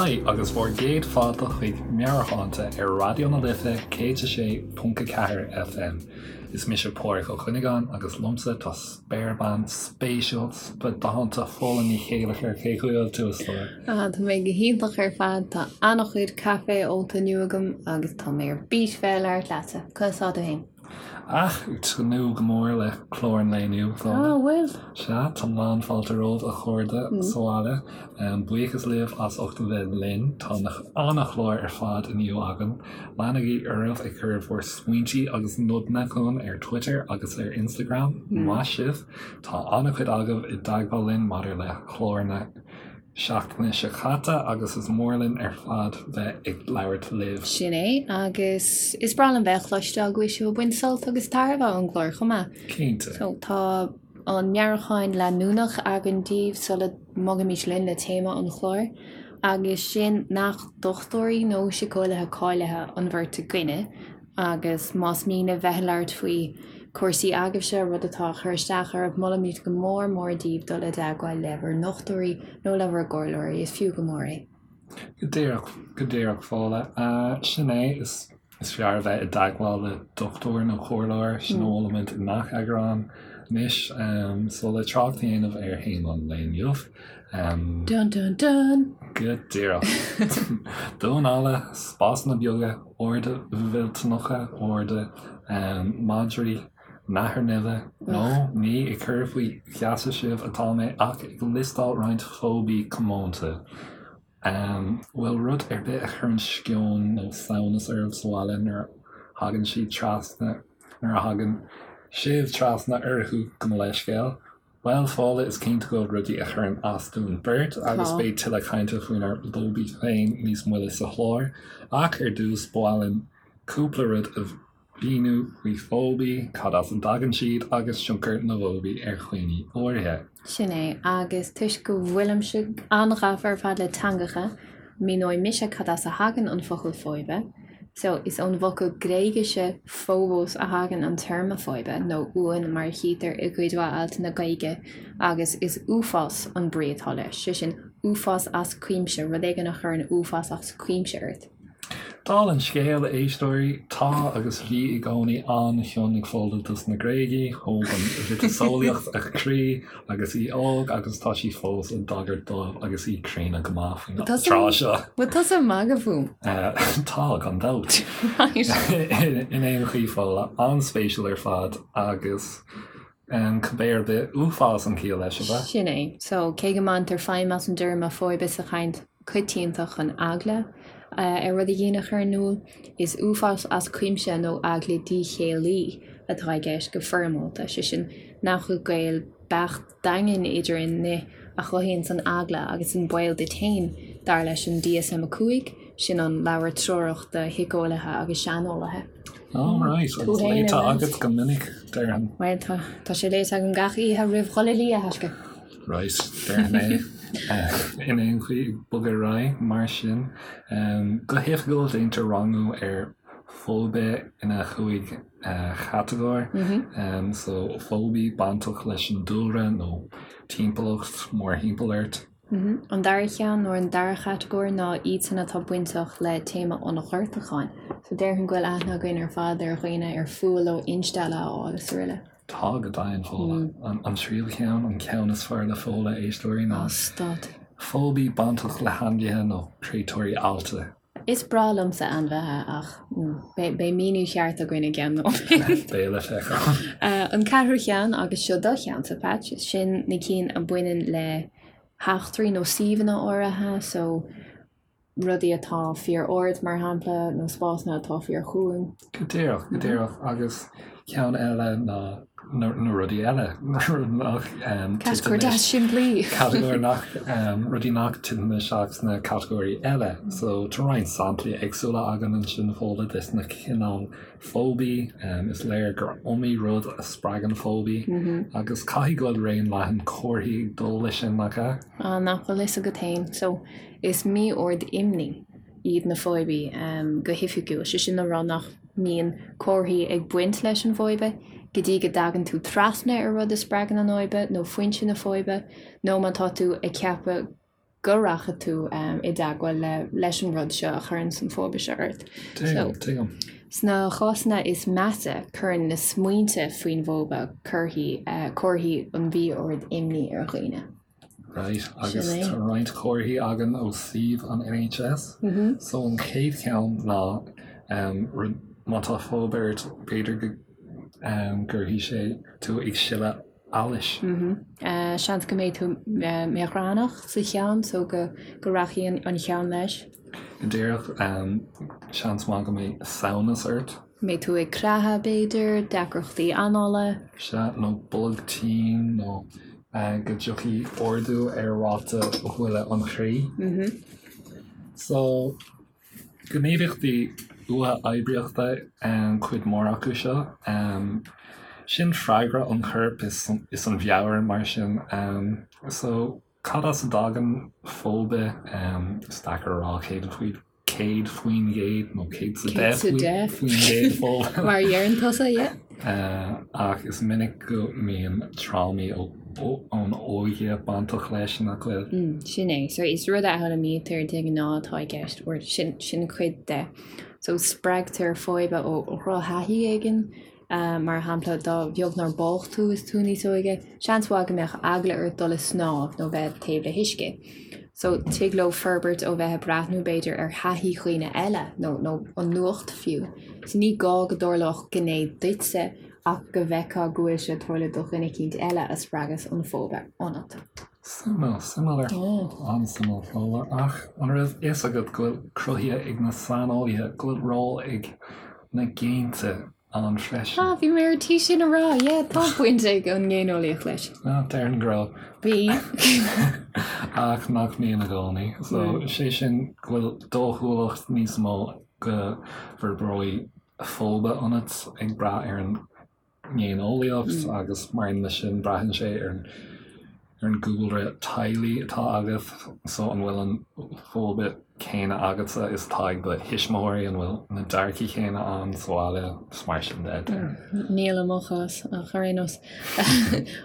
Haigh agus bhur gcéad fáilte chuig Meabhairshláinte ar Raidió na Life 106.4 FM. Is mise Pádraig Ó Cuinneagáin agus liomsa tá spéirbean spéisiúil, spadánta Fódhla Ní Chéilleachair. Cén chaoi a bhfuil tú, a stór? Ah, tá mé go hiontach ar fad. Tá an-chuid caife ólta inniu agam agus tá mé ar bís bheith ag labhairt leatsa. Conas tá tú féin? Ach, ag tnúth go mór le clár an lae inniu, a Fhódhla. Ah, bhfuil? Sea, tá lán-fháilte romhaibh, a chairde sa bhaile. Buíochas libh as ucht a bheith linn. Tá an-chlár ar fad inniu againn. Leanaigí oraibh ag cur bhur smaointe agus nodanna chugainn ar Twitter agus ar Instagram. Maith sibh! Tá an-chuid agaibh i dteagmháil linn maidir le clár na. seachtaine seo caite agus is mór linn ar fad bheith ag labhairt libh. Sin é, agus is breá liom bheith ag cloisteáil go bhfuil sibh ag baint sult agus tairbhe ón gclár chomh maith. Cinnte. So, tá an meabhrúchán leanúnach againn daoibh sula mbogfaimid linn le téama an chláir, agus sin nach dochtúirí nó síceolaithe cáilithe an bheirt againne, Agus más mian libh bheith ag labhairt faoi chúrsaí agaibhse, rud atá ag cur isteach oraibh, molaimid go mór mór daoibh dul i dteagmháil le bhur ndochtúirí nó le bhur gcomhairleoirí, is fiú go mór é. Go díreach, go díreach, Fódhla. Sin é, is is fearr a bheith i dteagmháil le dochtúir nó comhairleoir, sin a mholaimid i ngach eagrán. Anois, so le trácht a dhéanamh ar théama an lae inniu, Dun dun dun! Go díreach. Damhán alla, spásanna beaga, arda mhillteanacha, arda, madraí, nathair nimhe, nó ní ag cur faoi gheasa sibh atá mé ach ag liostáil roinnt fóbaí comónta. An bhfuil rud ar bith a chuireann sceon nó samhnas oraibh sa bhaile nuair a thagann siad trasna, nuair a thagann sibh trasna orthu, gabh mo leithscéal? Bhuel, Fódhla, is cinnte go bhfuil rudaí a chuireann as dúinn beirt agus beidh tuilleadh cainte faoinár bhfóbaí féin níos moille sa chlár. Ach ar dtús, ba mhaith linn cúpla rud a mhíniú faoi fóbaí, cad as a dtagann siad agus tionchar na bhfóbaí ar dhaoine áirithe. Sin é, agus toisc go bhfuilimse an-ghafa ar fad le teangacha, míneoidh mise cad as a thagann an focal fóibe. So, is ón bhfocal Gréigise phobos a thagann an téarma fóibe, nó uain mar a chítear i gcuid mhaith altanna Gaeilge, agus is uafás an brí atá leis, sé sin, uafás as cuimse, rud éigin a chuireann uafás as cuimse ort. Dála an scéil, a éisteoirí, tá agus bhí i gcónaí an-chion ag Fódhla dos na Gréagaigh, thóg an mhiotaseolaíocht a croí agus í óg agus tá sí fós ag tagairt dóibh agus í críonna go maith faoin tráth seo. Bhfuil tusa ag magadh fúm? Tá, gan dabht. In aon chaoi, Fódhla, an-spéisiúil ar fad agus cibé ar bith, uafás an chiall leis, ab ea? Sin é. So, cé go mbaintear feidhm as an dtéarma fóibe sa chaint coitianta chun eagla ar rud éigin a chur in iúl, is uafás as cuimse nó eagla díchéillí atá i gceist go foirmeálta, sé sin, nach bhfuil gaol beacht daingean idir an ní a chothaíonns an eagla agus an baol duit féin, dar leis an DSM-5, sin an leabhar treorach do shíceolaithe agus seaneolaithe. All right, agus léite agat go minic, déarfainn. Bhuel, tá, tá sé léite agam gach oíche roimh dhul a luí, a thaisce. Right, déarfainn é. In aon chaoi, ag bogadh ar aghaidh, mar sin, go hoifigiúil déantar rangú ar fóibe ina chúig chatagóir. So, fóbaí bainteach leis an dúlra nó timpeallacht mórthimpeall ort. An dara ceann nó an dara chatagóir ná iadsan atá bainteach le téama an ghortúcháin. So déarfainn go bhfuil aithne againn ar fad ar dhaoine ar fuath leo instealladh a fháil is araile. Tá, go deimhin, Fódhla. An tríú ceann, an ceann is fearr le Fódhla, éisteoirí, ná fóbaí bainteach le hainmhithe nó créatúirí allta. Is breá liomsa ainmhithe ach beidh míniú ceart againn i gceann nóiméad. Beidh le feiceáil. An ceathrú cheann, agus seo do cheannsa, Patch, sin na cinn a bhaineann le heachtraí nó suíomhanna áirithe, so rudaí atá fíor-ard, mar shampla, nó spásanna atá fíor-chúing. Go díreach, go díreach. Agus ceann eile ná na rudaí eile, nach Catagóir deas simplí. Catagóir nach, rudaí nach dtiteann isteach sna catagóirí eile. So tá roinnt samplaí éagsúla againn ansin, Fódhla, des na cineál fóbaí. Is léir gur iomaí rud a spreagann fóbaí agus caithfidh go bhfuil raon leathan comharthaí ag dul leis sin, nach ea? Ah, nach bhfuil fhios agat féin. So is mí-ord imní iad na fóibií go hoifigiúil, sé sin le rá nach mbíonn comharthaí ag baint leis an bhfóibe go dtí go dtagann tú trasna ar rud a spreagann an fhóibe nó foinse na fóibe, nó má tá tú ag ceapadh. go rachaidh tú i dteagmháil le leis an rud seo a chuireann an fóibe seo ort. Tuigim, tuigim. Sna cásanna is measa, cuireann na smaointe faoin bhfóibe comharthaí comharthaí an mhí-oird imní ar dhaoine. Right, agus tá roinnt comharthaí againn ó suíomh an NHS. So an chéad cheann ná má tá fóibe ort, b'fhéidir go gcuirfidh sé tú ag sileadh allais. Seans go mbeidh tú míogránach sa cheann so go rachaidh an cheann leis. Go díreach, seans maith go mbeidh samhnas ort. Mbeidh tú ag creathadh, b'fhéidir, deacrachtaí anála. Sea, nó bolg tinn nó go dtiocfaidh ardú ar ráta bhuille an chroí. So, gníomhaíochtaí uathoibríochta cuid mhór acu seo. Sin freagra an choirp is an mheabhair mar sin. So, cad as a dtagann fóibe? Is deacair a rá 100%. 100% nó 110% fóibe. Mar a dheireann tusa, yeah. Ach is minic go mbíonn trámaí ón óige bainteach leis, nach bhfuil? Sin é. So is rud a fhoghlaimítear de ghnáth atá i gceist, or sin sin cuid de. So spreagtar fóibe ó dhrochthaithí éigin, Mar shampla, dá bheag nár bádh tú is tú níos óige, seans mhaith go mbeadh eagla ort dul ag snámh nó bheith taobh le huisce. So, tig leo forbairt ó bheith ag breathnú, b'fhéidir, ar thaithí dhaoine eile nó nó an nuacht fiú. So, ní gá go dtarlódh gné duitse ach go bhfeicfeá go bhfuil sé ag tarlú do dhuine eicínt eile a spreagas an fóibe ionat. Suimiúil, suimiúil ar an-suimiúil Fódhla, ach an raibh fhios agat go bhfuil cruthaithe ag na saineolaithe go bhfuil ról ag na géinte ann freisin. Ah, bhí mé ar tí sin a rá, yeah, tá baint ag an ngéineolaíocht leis. Ah, déarfainn go raibh. Bhí. Ach nach mbíonn i gcónaí. So, sé sin go bhfuil dóchúlacht níos mó go bhforbróidh fóibe ionat ag brath ar an ngéineolaíocht agus mar aon leis sin braitheann sé ar an ar an gcúlra teaghlaigh atá agat, so an bhfuil an fóibe céanna agatsa is atá ag do thuismitheoirí, an bhfuil na dearcaí céanna ann sa bhaile, is mar sin de. Níl i mo chás, ach ar aon nós.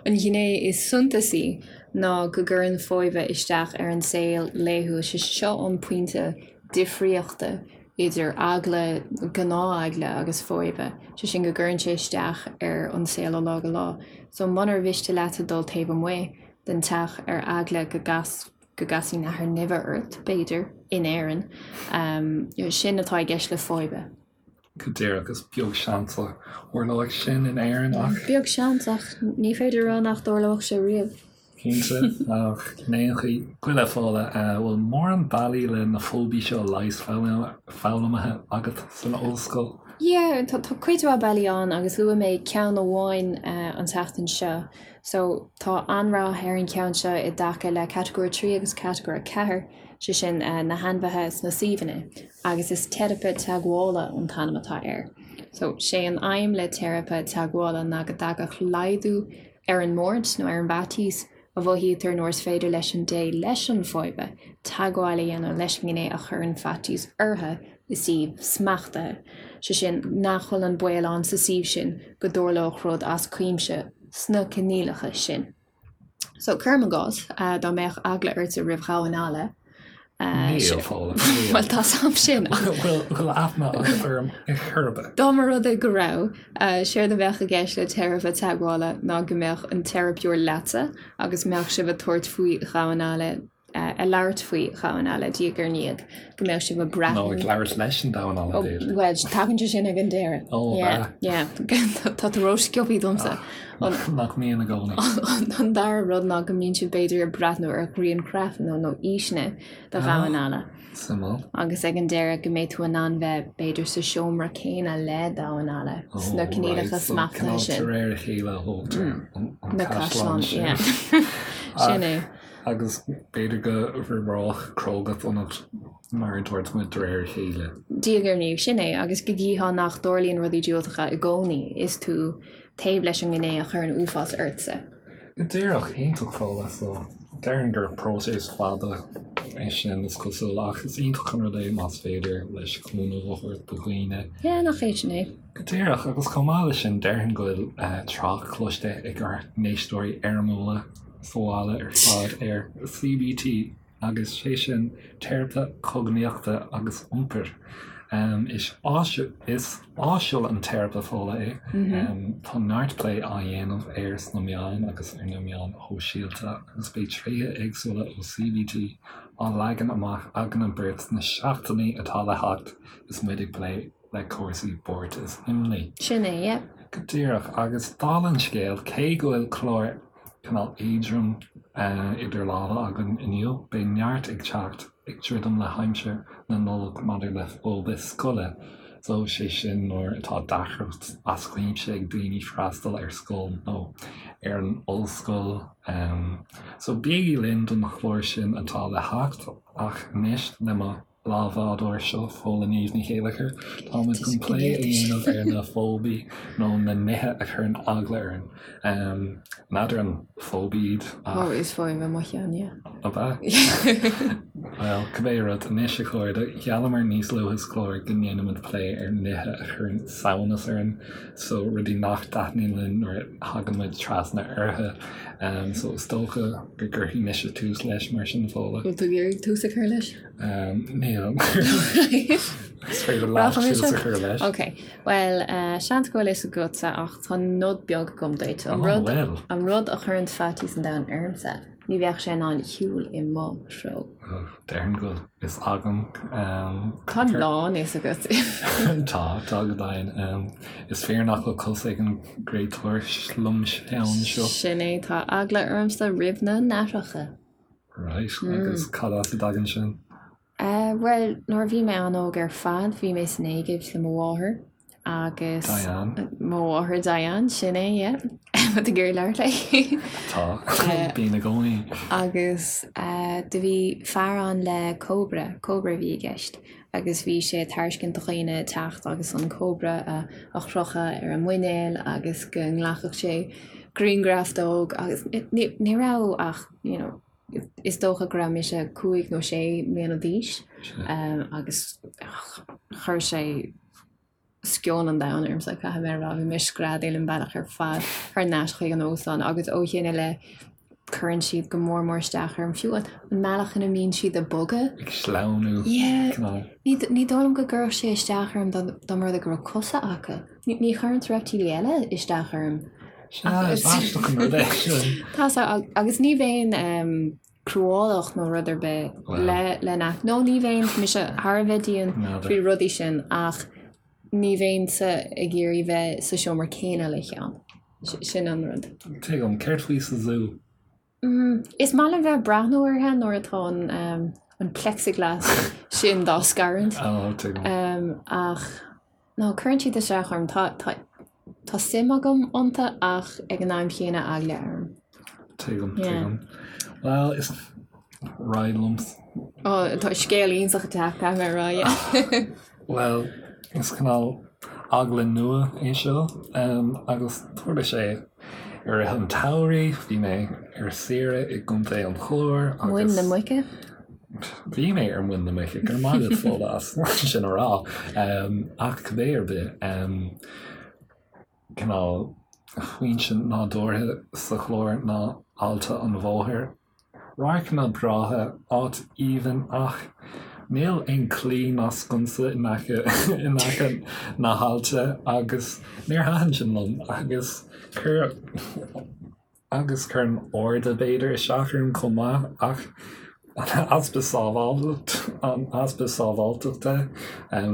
An ghné is suntasaí ná go gcuireann fóibe isteach ar an saol laethúil, sé seo an pointe difríochta idir eagla, gnátheagla agus fóibe, sé sin go gcuireann sé isteach ar an saol ó lá go lá. So munar mhiste leatsa dul taobh amuigh den teach ar eagla go gcas, go gcasfaidh nathair nimhe ort, b'fhéidir, in Éirinn, sin atá i gceist le fóibe. Go díreach, is beag seans a tharlóidh sin in Éirinn ach. Beag seans ach ní féidir a rá nach dtarlódh sé riamh. Cinnte, ach in aon chaoi, gabh i leith Fódhla, bhfuil mórán bealaí le na fóibí seo a leigheas foghlamtha agat san ollscoil? Yeah, tá cuid mhaith bealaí ann agus luaigh mé ceann amháin an tseachtain seo. So, tá an-rath ar an cheann seo i dtaca le Catagóir 3 agus Catagóir 4, sé sin na hainmhithe is na suíomhanna, agus is teiripe teagmhála an t-ainm atá air. So, sé an aidhm le teiripe teagmhála ná go dtagadh laghdú ar an mbuairt nó ar an bhfaitíos a mhothaítear nuair is féidir leis an dté leis an bhfóibe teagmháil a dhéanamh leis an ngné a chuireann faitíos orthu i suíomh smachtaithe, sé sin, nach bhfuil an baol ann sa suíomh sin go dtarlódh rud as cuimse sna coinníollacha sin. So, cuirim i gcás, dá mbeadh eagla ortsa roimh dhamháin alla, Níl, Fódhla, níl. Bhuel, tá 's a'm sin. Bhfuil aithne agat orm ar chor ar bith? Dá mba rud é go raibh, séard a bheadh i gceist le teiripe teagmhála ná go mbeadh an teiripeoir leatsa agus mbeadh sibh ag tabhairt faoi dhamháin alla, ag labhairt faoi dhamháin alla diaidh ar ndiaidh, go mbeadh sibh ag breathnú. Nó ag labhairt leis an damhán alla, b'fhéidir. Bhuel, tagann sé sin ag an deireadh. Ó, Yeah, yeah. Tá tú rósciobtha domsa. Nach mbíonn i gcónaí. An dara rud ná go mbíonn sibh b'fhéidir ag breathnú ar ghrianghraif nó nó fhíseanna de dhamháin alla. Suimiúil. Agus ag an deireadh go mbeidh tú in ann bheith b'fhéidir sa seomra céanna le damhán alla sna coinníollacha smachtaithe sin. De réir a chéile a thógtar an Na caisleán caisleáin, sin. yeah. Sin é. Agus b'fhéidir go bhforbródh crógacht ionat mar a dúirt muid de réir a chéile. Diaidh ar ndiaidh, sin é. Agus go gcífeá nach dtarlaíonn rudaí diúltacha i gcónaí is tú taobh leis an ngné a chuireann uafás ortsa. Go díreach, iontach Fódhla, so déarfainn gur próiseas fada é sin is cosúil ach is iontach an rud é más féidir leis cúnamh a thabhairt do dhaoine. Yeah, nach é sin é. Go díreach, agus chomh maith leis sin déarfainn go bhfuil trácht cloiste ag ár n-éisteoirí éirimiúla sa bhaile ar fad ar CBT. agus sé sin teiripe cognaíochta agus iompair. Is is áisiúil an teiripe Fódhla é. Tá neart plé á dhéanamh air sna meáin agus ar na meáin shóisialta agus beidh tréithe éagsúla ó CBT á leagan amach againne beirt sna seachtainí atá le theacht is muid ag plé le cúrsaí buairt is imní. Sin é, yeah. Go díreach. Agus dála an scéil, cé go bhfuil clár cineál éadrom idir lámha againn inniu, beidh neart ag teacht ag druidim le haimsir na Nollag maidir le fóibe scoile. So, sé sin nuair atá deacracht as cuimse ag daoine freastal ar scoil nó ar an ollscoil. So, bígí linn don chlár sin atá le theacht ach anois le mo leathbhádóir seo, Fódhla Niamh Ní Chéilleachair. Táimid chun plé a dhéanamh ar na fóibí nó na nithe a chuireann eagla orainn. N'fheadar an fóib iad ach. Ó, is fóib é mo cheann, yeah. Ab ea? Bhuel, cibé rud, anois a chairde, gheallamar níos luaithe sa chlár go ndéanfaimid plé ar nithe a chuireann samhnas orainn, so rudaí nach dtaitníonn linn nuair a thagann muid trasna orthu. So is dócha go gcuirfidh mise tús leis mar sin, Fódhla. Bhfuil tú ag iarraidh tús a chur leis? Níl. Is féidir leat tús a chur leis. Ok, bhuel, seans go bhfuil fhios agatsa ach tá nod beag agam duit. An rud, an rud a chuireann faitíos an domhain ormsa, ní bheadh sé in ann shiúl i mo threo. Déarfainn go bhfuil fhios agam. Tá a lán fhios agat. Tá, tá go deimhin. Is fíor nach bhfuil cos ag an gcréatúr slomcheann seo. Sin é, tá eagla ormsa roimh na nathracha. Right, agus cad as a dtagann sin? Bhuel, nuair a bhí mé an-óg ar fad, bhí mé san Éigipt le mo mháthair agus. Diane. Mo mháthair Diane, sin é, yeah. Tá tú ag iarraidh labhairt léi. Tá, bím i gcónaí. Agus do bhí fear ann le cobra, cobra a bhí i gceist, agus bhí sé ag tairiscint do dhaoine teacht agus an cobra a chrochadh ar a muinéal agus go nglacfadh sé grianghraf dó agus ní raibh ach you know, is dócha go raibh mise 5 nó 6 mbliana d'aois agus chuir sé sceon an domhain ormsa, caithfidh mé a rá, bhí mé ag screadaíl an bealach ar fad thar n-ais chuig an óstán agus ó shin i leith cuireann siad go mór mór isteach orm, fiú an mbealach ina mbíonn siad ag bogadh. Ag sleamhnú. Yeah. Ní dóigh liom go gcuirfeadh sé isteach orm dá mba rud é go raibh cosa acu. Ní chuireann reiptílí eile isteach orm. Sea, is aisteach an rud é sin. Tá sé, agus ní bheinn cruálach nó rud ar bith le le na, nó ní bheinn, mise thar a bheith dian faoi rudaí sin ach ní bheinnse ag iarraidh bheith sa seomra céanna le ceann. Sin an rud. Tuigim. Céard faoi sa zú? Is maith liom bheith ag breathnú orthu nuair atá an an plexiglass sin dá scarúint. Ó, tuigim. Ach no, cuireann siad isteach orm. Tá tá tá suim agam iontu ach ag an am chéanna eagla orm. Tuigim, tuigim. Bhuel, is raghaidh liom. Ó, tá scéal iontach ag teacht, caithfidh mé a rá, yeah. Bhuel, is cineál eagla nua é seo agus tharla sé i rith an tsamhraidh, bhí mé ar saoire i gContae an Chláir agus. Muin na Muice? Bhí mé ar Mhuin na Muice, go raibh maith agat Fódhla as sin a rá. Ach cibé ar bith, cineál foinse nádúrtha sa Chlár ná Aillte an Bhóthair. Radharcanna breátha, áit aoibhinn ach níl aon claí ná sconsa in aice in aice na haillte agus níor thaitin sin liom agus chuir agus chuir an airde b'fhéidir isteach orm chomh maith ach an easpa sábháilt an easpa sábháilteachta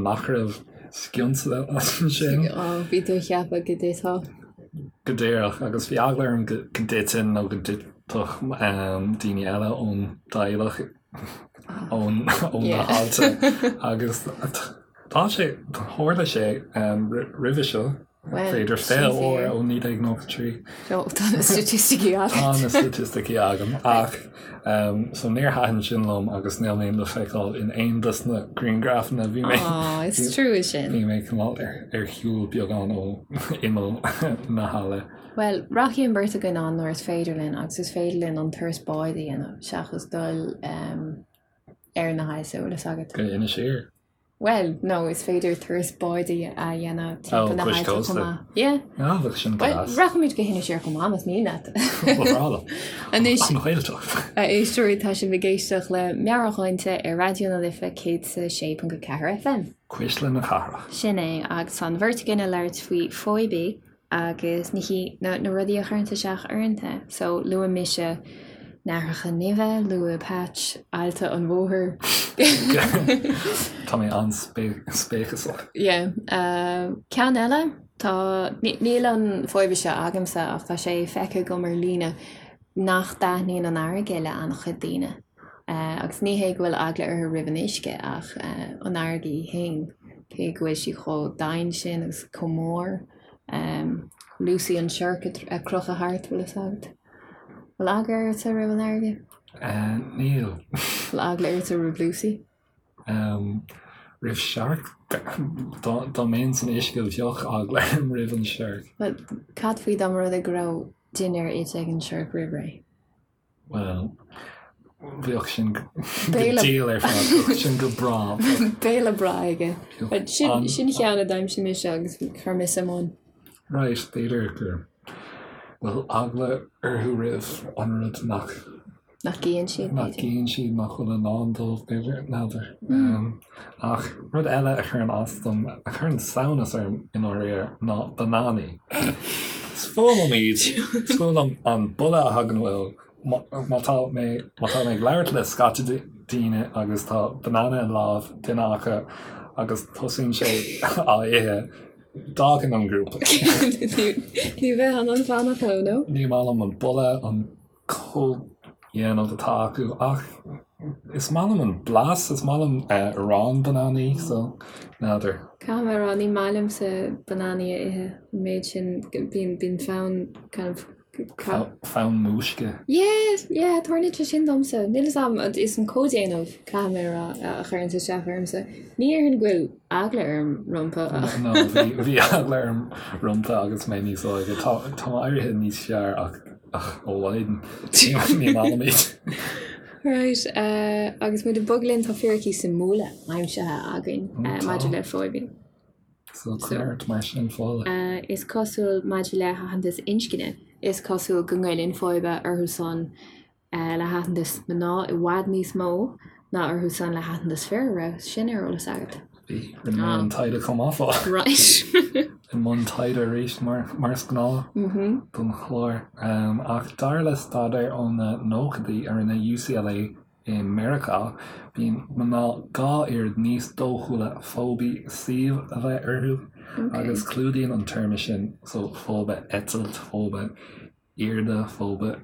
nach raibh sconsa ansin. Ó bhí tú ag ceapadh go dtitfeá. Go díreach agus bhí eagla orm go dtitfinn nó go dtitfeadh daoine eile ón dteaghlach ón ó na haillte agus tá sé tharla sé roimhe seo b'fhéidir 20 uair ó 1993. Tá na staitisticí agat. Tá na staitisticí agam ach so níor thaitin sin liom agus níl mé le feiceáil in aon dos na grianghrafanna bhí mé Á, is trua sin. Bhí mé cineál ar shiúl beagán ó imeall na haille. Bhuel, rachaidh an bheirt againn ann nuair is féidir linn agus is féidir linn an turas báid a dhéanamh seachas dul ar na haillte, bhfuil fhios agat. Go Inis Oírr. Bhuel, nó is féidir turas báid a dhéanamh timpeall na háite chomh maith. Yeah. Ah, bheadh sin go deas. Rachaimid go hInis Oírr chomh maith, más mian leat. Ba bhreá liom. Anois, An Ghaeltacht. a éisteoirí, tá sibh ag éisteacht le Meabhairshláinte ar Raidió na Life 106.4 FM. Cuisle na cathrach. Sin é, agus tá an bheirt againn ag labhairt faoi fóibi agus na na na rudaí a chuireann isteach orainn. So luaigh mise nathracha nimhe, luaigh Patch aillte an bhóthair. Tá mé an-spéiceasach. Yeah. Ceann eile, tá, níl an fóibe seo agamsa ach tá sé feicthe agam ar líne nach dtaitníonn an fharraige le an-chuid daoine. Agus ní hé go bhfuil eagla orthu roimh an uisce ach an fharraige í féin, cé go bhfuil sí chomh domhain sin agus chomh mór. Lucy an siorc ag crochadh thart, bhfuil fhios agat? Bhfuil eagla ortsa roimh an fharraige? Níl. Bhfuil eagla ortsa roimh Lucy? Roimh searc? Dá mbeinn san uisce bheadh eagla orm roimh an siorc. Bhuel, cad faoi dá mba rud é go raibh dinnéar ite ag an siorc roimh ré? Bhuel, bheadh sin go diail ar fad, bheadh sin go breá. Béile breá aige. Sin sin ceann a d'aimsigh mise agus chuir mé suim ann. Right, b'fhéidir go bhfuil eagla orthu roimh an rud nach. Nach gcíonn siad, Nach gcíonn siad, nach bhfuil i ndán dóibh, b'fhéidir, n'fheadar. Ach rud eile a chuireann as dom, a chuireann samhnas orm i ndáiríre, ná bananaí. Is fuath liom iad, is fuath liom an boladh a thagann uathu. Má tá mé, má tá mé ag labhairt le scata daoine agus tá banana i lámh duine acu agus tosaíonn sé á ithe, d'fhágfainn an grúpa. Ní bheifeá in ann fanacht leo, nó? Ní maith liom an boladh, an comhdhéanamh atá acu ach is maith liom an blas, is maith liom arán bananaí so n'fheadar. Caithfidh mé a rá, ní maith liomsa bananaí a ithe, an méid sin, bíonn, bíonn fonn kind of Fonn múisce. Yeah, yeah, tarlaíonn sé sin domsa. Níl fhios a'm, is an comhdhéanamh, caithfidh mé a rá, a chuireann isteach ormsa. Ní déarfainn go bhfuil eagla orm rompu ach. No, bhí, bhí eagla orm rompu agus mé níos óige. Tá, tá mé éirithe níos fearr ach Ach ó mhaidin, ní maith liom iad. Right, agus muid ag bogadh linn tá fíricí suimiúla aimsithe againn maidir le fóibi. So cuir ort mar sin Fódhla. Is cosúil maidir le haitheantas inscne, is cosúil go ngoilleann fóibe orthu san le haitheantas mná i bhfad níos mó ná orthu san le haitheantas fir, an raibh sin ar eolas agat? Bhí, rinne mé an taighde chomh maith fá. Right. I mbun taighde arís mar mar is gnáth don chlár. Ach dar le staidéar ó na nóchaidí a rinne UCLA i Meiriceá, bíonn mná 2 oiread níos dóchúla fóibe suímh a bheith orthu agus clúdaíonn an téarma sin so fóibe eitilt, fóibe airde, fóibe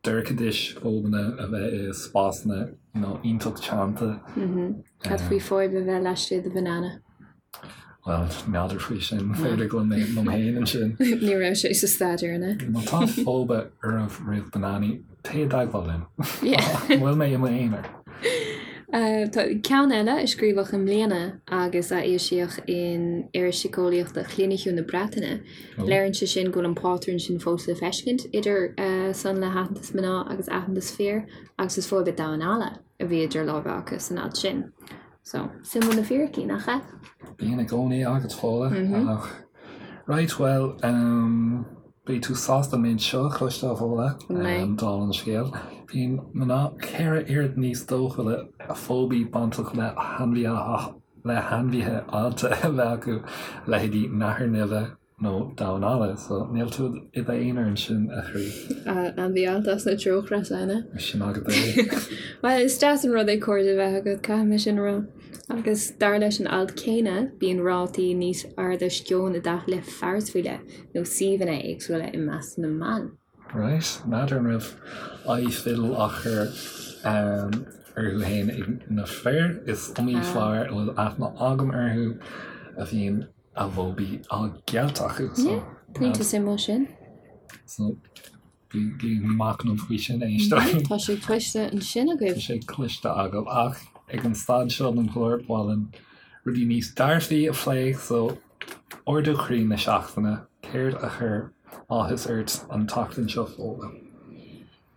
dorchadais, fóibeanna a bheith i spásanna you know iontach teannta. Cad faoi fóibe a bheith laistigh de bhanana? Bhuel, n'fheadar faoi sin, b'fhéidir go bhfuil mé liom féin ansin. Ní raibh sé sa staidéar, an ea? Má tá fóibe oraibh roimh bananaí, téigh i dteagmháil linn. An bhfuil mé i m'aonar? Tá ceann eile a scríobhadh i mbliana agus a foilsíodh in Iris Síceolaíochta Chliniciúil na Breataine. Léiríonn sé sin go bhfuil an pátrún sin fós le feiscint idir san le haitheantas mná agus aitheantas fir agus is fóibe damhán alla a bhí idir lámha acu san alt sin. So, suimiúil na fíricí, nach ea? Bíonn i gcónaí agat, Fódhla. Ach, right, bhuel, um, beidh tú sásta an méid seo a chloisteáil, Fódhla, um, dála an scéil. Bíonn mná 4 oiread níos dóchúla fóibe bainteach le hainmhithe le hainmhithe allta a bheith acu, leithéidí nathair nimhe nó damhán alla, so níl tú i d'aonar ansin, a chroí. Ainmhí allta as na treochreasa, an ea? Sin agat é. Bhuel, is deas an rud é cairde a bheith agat, caithfidh mé sin a rá. Agus dar leis an alt céanna, bíonn rátaí níos airde sceon i dtaca le fearais faoi leith nó suíomhanna éagsúla i measc na mban. Right, n'fheadar an raibh aghaidh fidil á chur orthu fhéin ag na fir. Is iomaí fear a bhfuil aithne agam orthu a bhíonn a bhfóibi á gceilt acu. So, pointe suimiúil sin. So, bígí ag machnamh faoi sin, éisteoirí. Tá sé cloiste ansin agaibh. Tá sé cloiste agaibh ach ag an staid seo den chlár, ba mhaith linn rudaí níos dearfaí a phlé, so Ardú croí na seachtaine, céard a chuir áthas ort an tseachtain seo, Fódhla?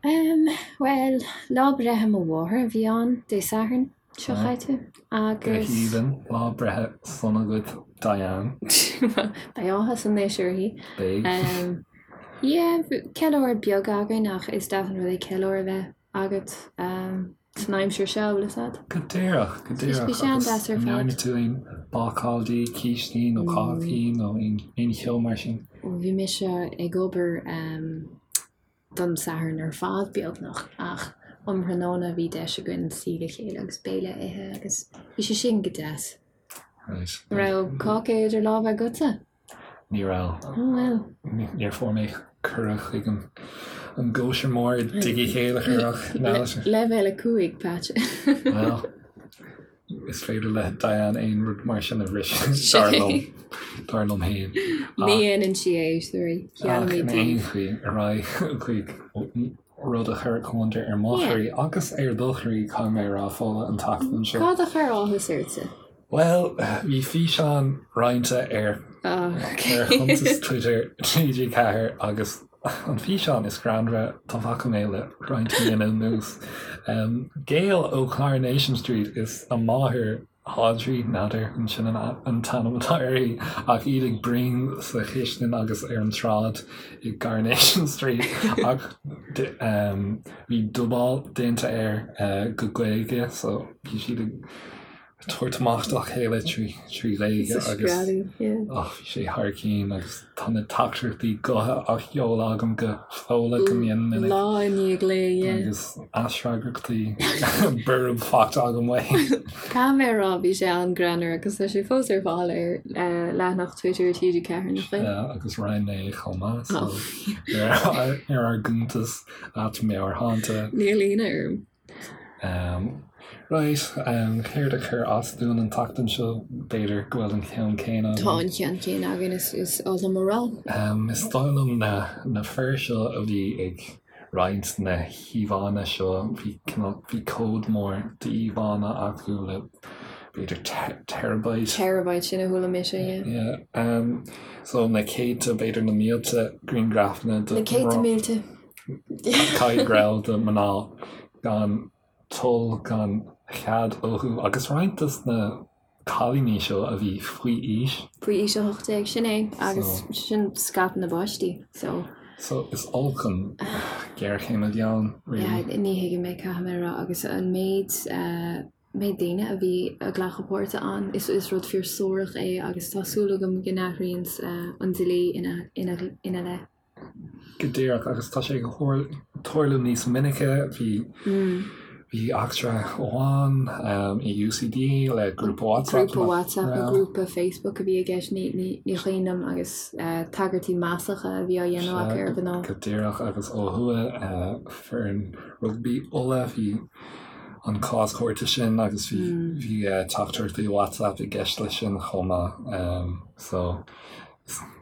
Em, bhuel, lá breithe mo mháthar a bhí ann Dé Sathairn. Seo chaite Go agus. haoibhinn, lá breithe sona duit Diane. Beidh áthas anois uirthi. Beidh. Yeah, ceiliúradh beag againn ach is deas an rud é ceiliúradh a bheith agat san aimsir seo, bhfuil fhios a'd? Go díreach, go díreach. Bhí sé an-deas ar Agus fad. an ndearna tú aon bácáil di, cístí nó cácaí nó aon cheo mar sin? Bhí mise ag obair don Satharn ar fad, beagnach, ach um thráthnóna bhí deis againn suí le chéile agus béile a ithe agus bhí sé sin go deas. Right. An raibh cáca idir lámha agatsa? Ní raibh. Oh well. Níor fuair mé cuireadh chuig an an gcóisir mór i dtigh Uí Chéilleachair ach Leibhéal 5, Patch. Well. Is féidir le Diane aon rud mar sin a bhriseadh, dar liom, dar liom féin. Ní dhéanann sí é, sorry. Ach in aon chaoi, ar aghaidh chuig rud a chuir gliondar ar mo chroí agus ar do chroí, caithfidh mé a rá, Fódhla, an tseachtain seo. Cad a chuir áthas ortsa? Bhuel, bhí físeán roinnte ar ar chuntas Twitter TG4 agus an físeán is greannmhaire dá bhfaca mé le roinnt míonna anuas. Gael ó Coronation Street is a máthair Audrey, n'fheadar an sin an t-ainm atá uirthi, ach iad ag bruíon sa chistin agus ar an tsráid i gCoronation Street ach bhí dubáil déanta air go Gaeilge so bhí siad ag tabhairt amach dá chéile trí Ghaeilge agus bhí sé thar cinn agus tá na teachtaireachtaí gutha á sheoladh agam go Fódhla go mion minic. Lá i ndiaidh lae, yeah. Agus aisfhreagrachtaí borb faighte agam uaithi. Caithfidh mé a rá, bhí sé an-greannmhar agus tá sé fós ar fáil ar leathanach Twitter TG4, nach bhfuil? Yeah, agus roinn mé é chomh maith so ar ár gcuntas @Meabhairshláinte. Níl ionadh orm. Right, céard a chuir as dúinn an tseachtain seo? B'fhéidir go bhfuil an ceann céanna againn. Tá an ceann céanna againn, is oth liom a rá. Is dóigh liom na na fir seo a bhí ag roinnt na híomhánna seo, bhí cineál, bhí comhad mór d'íomhánna acu le b'fhéidir terabyte. Terabyte, sin a chuala mise, yeah. Yeah. So na céadta, b'fhéidir na mílte grianghrafanna de. Na céadta mílte. Caithfidh go raibh de mná gan toil gan chead uathu agus roinnt dos na cailíní seo a bhí faoi aois. Faoi aois 18, sin é agus sin scaipeadh na bpáistí so. So is olc an ghéarchéim a bhí ann really. Yeah, ní thuigim é caithfidh mé a rá agus an méid méid daoine a bhí ag glacadh páirte ann is is rud fíor suarach é agus tá súil agam go n-athraíonn an dlí ina ina ina leith. Go díreach, agus tá sé ag tarlú níos minice. Bhí bhí eachtra amháin i UCD le grúpa WhatsApp. Grúpa WhatsApp nó grúpa Facebook a bhí i gceist, ní cuimhin liom, agus tagairtí maslacha a bhí á dhéanamh acu ar mhná. Go díreach, agus ó thuaidh, foireann rugbaí Uladh, bhí an cás cúirte sin agus bhí bhí teachtaireachtaí WhatsApp i gceist leis sin chomh maith. So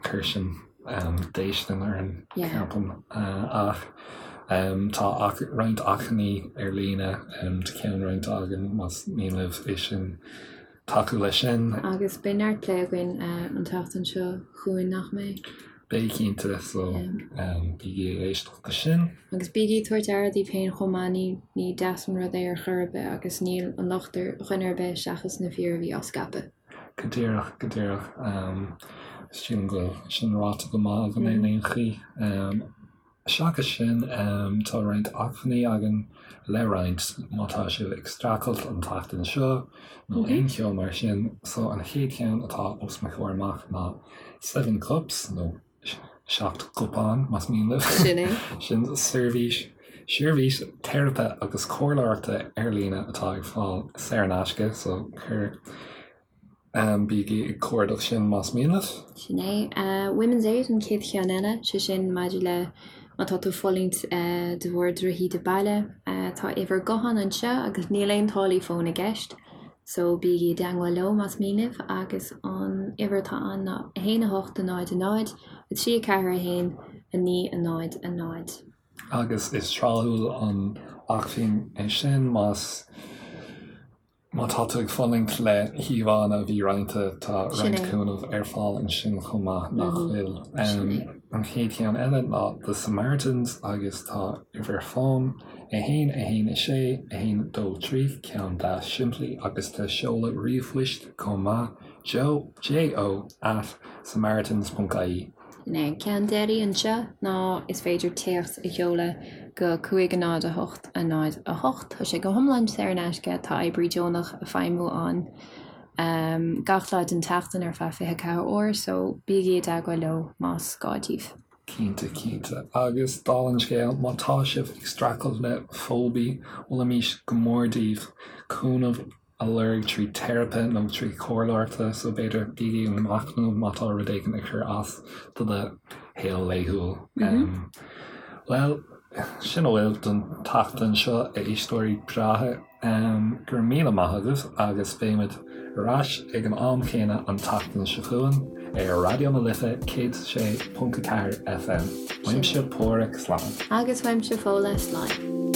chuir sin déistin orainn, ceapaim. Ach tá roinnt achainí ar líne tá ceann roinnte againn más mian libh é sin tacú leis sin. Agus beidh neart plé againn an tseachtain seo chugainn, nach mbeidh? Beidh cinnte, so bígí ag éisteacht leis sin. Agus bígí ag tabhairt aire daoibh féin chomh maith, ní deas an rud é ar chor ar bith agus níl an locht ar dhuine ar bith seachas na fir a bhí á scaipeadh. Go díreach, go díreach. Sílim go bhfuil sin ráite go maith agam in aon chaoi. Seachas sin, tá roinnt acmhainní againn le roinnt má tá sibh ag streachailt an tseachtain seo nó aon cheo mar sin. So an chéad cheann atá os mo chomhair amach ná Seven Cups nó 7 gcupán, más mian libh. Sin é. Sin seirbhís, seirbhís teiripe agus comhairleoireachta ar líne atá ar fáil saor in aisce, so cuir, bígí ag cuardach sin más mian libh. Sin é. Women's Aid an chéad cheann eile, sé sin maidir le má tá tú ag fulaingt de bharr drochíde baile. Tá uimhir gutháin anseo agus níl aon táillí fóin i gceist. So bígí i dteangmháil leo más mian libh agus an uimhir atá ann ná 1 8 0 0 3 4 1 9 0 0. Agus is tráthúil an acmhainn é sin más má tá tú ag fulaingt le híomhánna a bhí roinnte, tá roinnt cúnamh ar fáil ansin chomh maith, nach bhfuil? An chéad cheann eile ná The Samaritans agus tá uimhir fóin 1 1 6 1 2 3, ceann deas simplí agus tá seoladh ríomhphoist chomh maith, joe, J-O, at samaritans.ie. An ceann deiridh anseo ná is féidir téacs a sheoladh go 5 0 8 0 8. Tá sé go hiomlán saor in aisce, tá oibrí deonach ag feidhmiú ann gach lá den tseachtain ar feadh 24 uair, so bígí i dteagmháil leo más gá daoibh. Cinnte, cinnte. Agus dála an scéil, má tá sibh ag streachailt le fóibe, mholfaimis go mór daoibh cúnamh a lorg trí teiripe nó trí chomhairleoireacht, so b'fhéidir bígí ag machnamh má tá rud éigin ag cur as do do shaol laethúil. Bhuel, sin a bhfuil don tseachtain seo, a éisteoirí breátha. Go raibh míle maith agaibh agus beimid ar ais ag an am chéanna an tseachtain seo chugainn ar Raidió na Life 106.4 FM. Uaimse Páraic, slán. Agus uaimse Fódhla, slán.